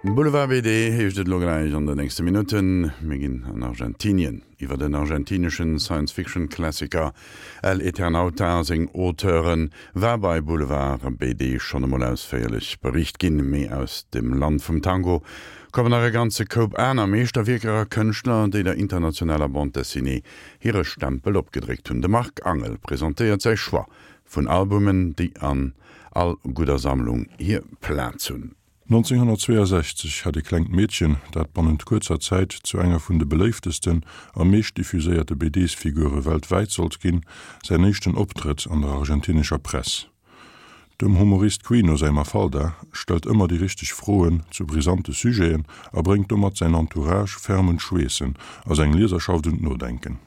Boulevard BD heescht et elo gläich an den nächste Minutten. Mir ginn an Argentinien. Iwwer den argentineschen Science-Fiction-Klassiker El Eternauta a seng Auteure war bei Boulevard BD schonn emol ausféierlech bericht ginn. Mee aus dem Land vum Tango kommen nach e ganze Koup aner Meeschterwierker a Kënschtler, déi der internationaler Bande Dessinée hire Stempel opgedréckt hunn. De Marc Angel presentéiert säi Choix vun Albumen, déi an all gudder Sammlung hir Plaz hunn. 1962 hat e klengt Meedchen, dat bannent kuerzer Zäit zu enger vun de beléiftesten a meescht diffuséierte BDs-Figure weltwäit sollt ginn, säin éischten Optrëtt an der argentinescher Press. Dem Humorist Quino säi Mafalda stellt ëmmer déi richteg Froen zu brisante Sujeten a bréngt domat säin Entourage ferm un d'Schweessen a seng Lieserschaft un d'Nodenken.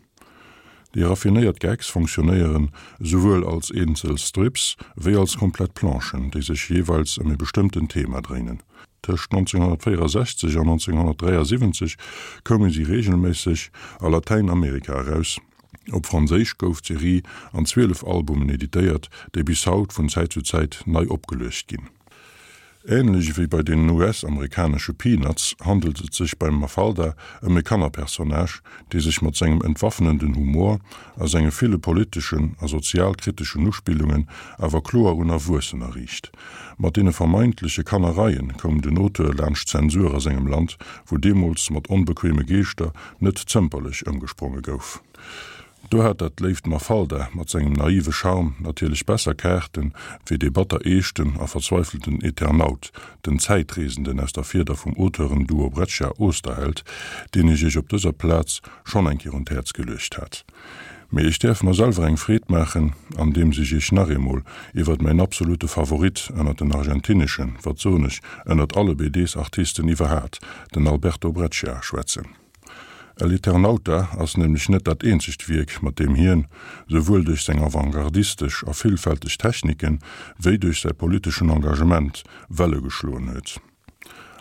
Déi raffinéiert Gags fonctionnéieren esouwuel als eenzel Strips wéi als komplett Planchen, déi sech jeeweils ëm e bestëmmten Thema dréinen. Tëscht 1964 an 1973 koume si reegelméisseg a Latäinamerika eraus. Op Franséisch gouf d'Serie an 12 Albumen editéiert, déi bis haut vun Zäit zu Zäit nei opgeluecht ginn. Änlech ewéi bei den US-amerikanesche Peanuts handelt et sech beim Mafalda ëm e Kannerpersonnage, dee sech mat sengem entwaffnenden Humor a senge ville politeschen a sozialkriteschen Uspillungen awer kloer un Erwuessener riicht. Mat deene vermeintleche Kannereien koum den Auteur laanscht d'Zensur a sengem Land, wou deemools mat onbequeme Geeschter net zëmperlech ëmgespronge gouf. Do hat dat léift Mafalda mat sengem naive Charme natierlech besser Kaarten wéi dee batter eeschten a verzweifelten Eternaut, den Zäitreesenden aus der Fieder vum Auteuren-Duo Breccia-Oesterheld, deen ech iech op dëser Plaz schonn eng Kéier un d'Häerz geluecht hat. Mee ech däerf mer selwer eng Freed maachen, andeems ech iech nach eemol iwwert mäin absolute Favorit ënnert den argentineschen, wat soen ech, ënnert alle BDs-Artisten iwwerhaat, den Alberto Breccia, schwätzen. El Eternauta ass nämlech net dat eenzegt Wierk, mat deem hien, souwuel duerch seng avantgardistesch a villfälteg Techniken, wéi duerch säi politeschen Engagement, Welle geschloen huet.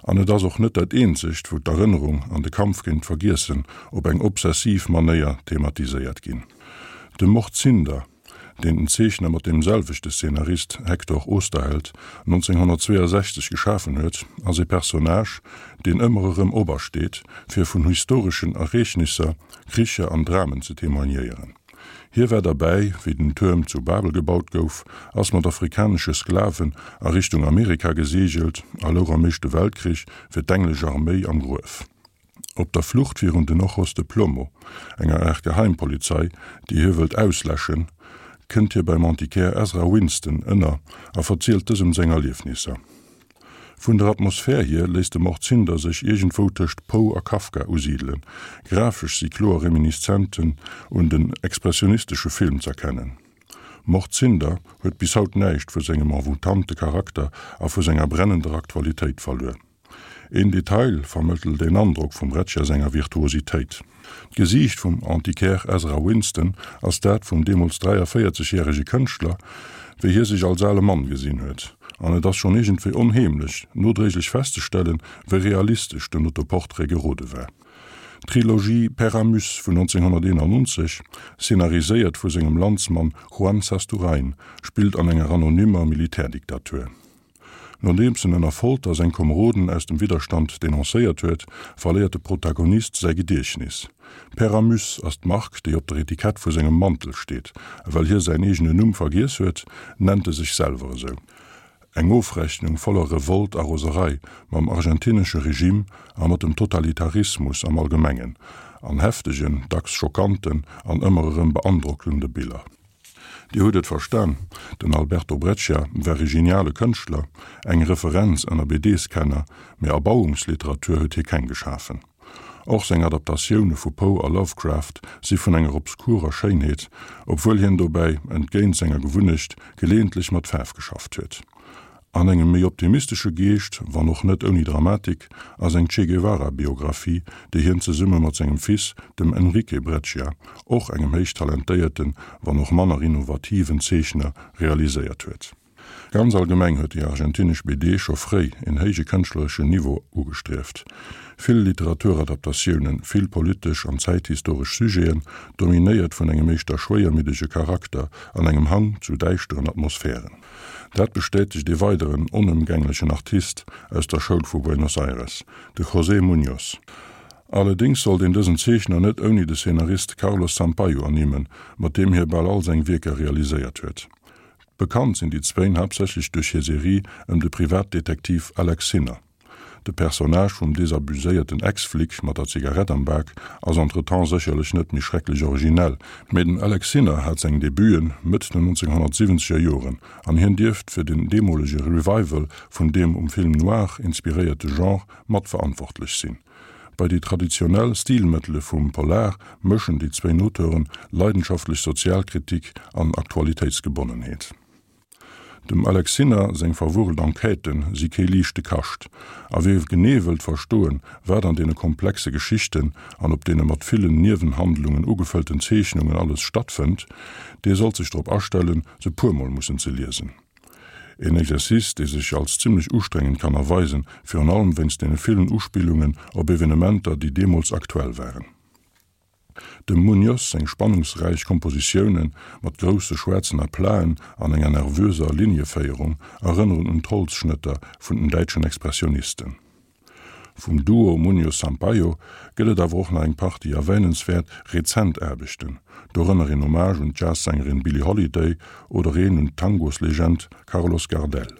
An et ass och net dat eenzegt, wou d'Erënnerung an de Kampf géint d'Vergiessen op eng obsessiv Manéier thematiséiert ginn. De Mord Zinder deen den Zeechner mat deem selwechte Szenarist Hector Oesterheld 1962 geschafen huet, ass e Personnage, deen ëmmer erëm opersteet, fir vun historeschen Ereegnisser, Kricher an Dramen ze témoignéieren. Hie war derbäi, wéi den Tuerm zu Babel gebaut gouf, ass mat afrikanesche Sklaven a Richtung Amerika geseegelt a louch am Éischte Weltkrich fir d'englesch Arméi am Gruef. Op der Flucht virun den Ojos de Plomo, enger Aart Geheimpolizei, déi hie wëllt ausläschen, kënnt hie beim Antiquaire Ezra Winston ënner a verzielt dësem seng Erliefnisser. Vun der Atmosphär hier léisst de Mordzinder sech iergendwou tëscht Poe a Kafka usidelen, grafesch si kloer Reminiszenzen un den expressionistesche Film z'erkennen. Mordzinder huet bis haut näischt vu sengem envoûtante Charakter a vu senger brennender Aktualitéit verluer. Een Detail vermëttelt een Androck vum Breccia senger Virtuositéit. D'Gesiicht vum Antiquaire Ezra Winston ass dat vum deemools 43 järege Kënschtler, wéi hie sech als ale Mann gesinn huet. An et ass schonn iergendwéi onheemlech, nodréiglech festzestellen, wéi realistesch den Autoportrait gerode war. D'Trilogie Père Amos vun 1991, szenariséiert vu sengem Landsmann Juan Sasturain, spillt an enger anonymer Militärdiktatur. Nodeems en ënner Folter seng Komeroden aus dem Widderstand denoncéiert huet, verléiert de Protagonist säi Gediechtnis. Père Amos ass d'Mark, déi op der Etikett vu sengem Mantel steet, a well hie säin eegene Numm vergiess huet, nennt e sech selwer esou. Eng Ofrechnung voller Revolt a Roserei mam argentinesche Regime a mat dem Totalitarismus am Allgemengen, an heftegen, dacks schockanten an ëmmer erëm beandrockende Biller. Dir hutt et verstan, den Alberto Breccia war e geniale Kënschtler, eng Referenz ënner BDs-Kenner, mee Erbauungsliteratur huet hie keng geschafen. Och seng Adaptatioune vu Poe a Lovecraft si vun enger obskurer Schéinheet, obwuel hien dobäi, entgéint senger Gewunnecht, geleeëntlech mat Faarf geschafft huet. An engem méi optimistesche Geescht, wann och net ouni Dramatik, ass eng Che Guevara-Biographie, déi hien zesumme mat sengem Fils, dem Enrique Breccia, och engem héich talentéierten, wann och manner innovativen Zeechner, realiséiert huet. Ganz allgemeng huet déi argentinesch BD scho fréi en héije kënschtlereschen Niveau ugestrieft. Vill Literaturadaptatiounen, vill politesch an zäithistoresch Sujeten, dominéiert vun engem éischter schwéiermiddege Charakter an engem Hang zu däischteren Atmosphären. Dat bestätegt ee weideren onëmgänglechen Artist aus der Schoul vu Buenos Aires, de José Muñoz. Allerdéngs sollt een dësen Zeechner net ouni de Szenarist Carlos Sampaio ernimmen, mat deem hie bal all seng Wierker realiséiert huet. Bekannt sinn déi zwéin haaptsächlech duerch hir Serie ëm de Privatdetektiv Alex Sinner. De Personnage vum desabuséierten Ex-Flic mat der Zigarett am Bak ass entretemps sécherlech net méi schrecklech originell, mee den Alex Sinner hat seng Debuten Mëtt den 1970er Joren an hien dierft fir den deemolege Revival vun deem um Film noir inspiréierte Genre matverantwortlech sinn. Bei déi traditionell Stilmëttele vum Polar mëschen déi zwéin Auteuren leidenschaftlech Sozialkritik an Aktualitéitsgebonnenheet. Dem Alex Sinner seng verwurrelt Enquêtë si kee liichte Kascht, a wie genee wëllt verstoen, wat an deene komplexe Geschichten an op deene mat villen Niewenhandlungen ugefëllten Zeechnungen alles stattfënnt, dee sollt sech drop astellen, se puermol mussen ze liesen. Een Exercice, dee sech als zimmlech ustrengend kann erweisen, virun allem wéinst deene villen Uspillungen op Evenementer, déi deemools aktuell waren. Dem Muñoz seng spannungsräich Kompositioune mat grousse schwaarzen Aplaten an enger nervöser Linieféierung erënneren un d'Holzschnëtter vun den däitschen Expressionisten. Vum Duo Muñoz-Sampaio gëtt et awer och nach eng Partie erwähnenswäert rezent Aarbechten, dorënner een Hommage un d'Jazzsängerin Billie Holiday oder een un d'Tangoslegend Carlos Gardel.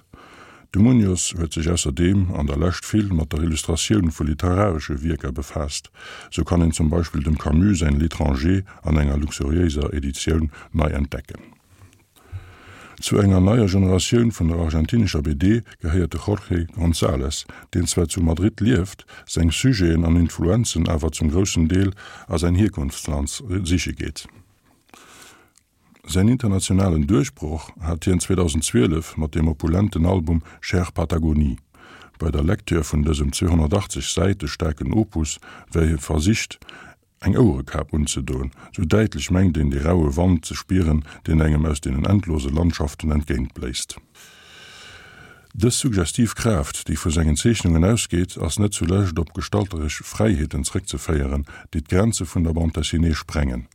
De Muñoz huet sech ausserdeem an der Lescht vill mat der Illustratioun vu literaresche Wierker befaasst, sou kann een zum Beispill dem Camus säin L'étranger an enger luxuriéiser Editioun nei entdecken. Zu enger neier Generatioun vun der argentinescher BD gehéiert de Jorge González, deen zwar zu Madrid lieft, seng Sujeten an Influenzen awer zum groussen Deel a säin Hierkonftsland siche geet. Säin internationalen Duerchbroch hat hien 2012 mat dem opulenten Album Cher Patagonie. Bei der Lecture vun dësem 280 Säite staarken Opus wär hie versicht, eng Ouerekap unzedoen, sou däitlech mengt een de raue Wand ze spieren, deen engem aus deenen endlose Landschaften entgéintbléist. Dës suggestiv Kraaft, déi vu sengen Zeechnungen ausgeet, ass net zulescht op gestalteresch Fräiheeten zréckzeféieren, déi d'Grenze vun der Bande dessinée sprengen.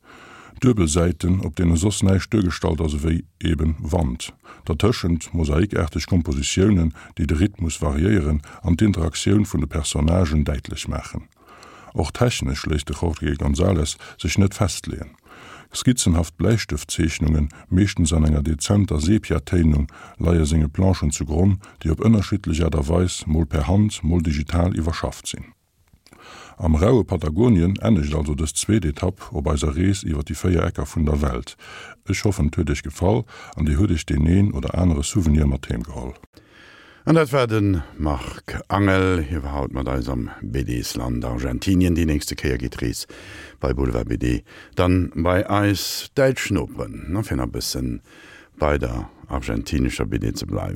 Duebel Säiten, op deene soss näischt duergestallt ass ewéi eben Wand. Dertëschent mosaikaarteg Kompositiounen, déi de Rhythmus variéieren an d'Interaktioun vun de Personnagen däitlech maachen. Och technesch léisst de Jorge González sech net festleeën. Skizzenhaft Bläistëftzeechnungen, meeschtens an enger dezenter Sepia-Téinung, leie senge Planchen zu Gronn, déi op ënnerschiddlech Aart a Weis, mol per Hand, mol digital iwwerschafft sinn. Am raue Patagonien ennegt also dës zweet Etapp op eiser Rees iwwer déi 4 Ecker vun der Welt. Ech hoffen et huet iech gefall an dir hutt iech deen een oder anere Souvenir mat heem geholl. An dat war de Marc Angel. Hie war haut mat eis am BDs-Land Argentinien. Déi nächste Kéier geet d'Rees bei Boulevard BD dann bei eis däitsch Noperen. A fir nach e bëssen bei der argentinescher BD ze bleiwen.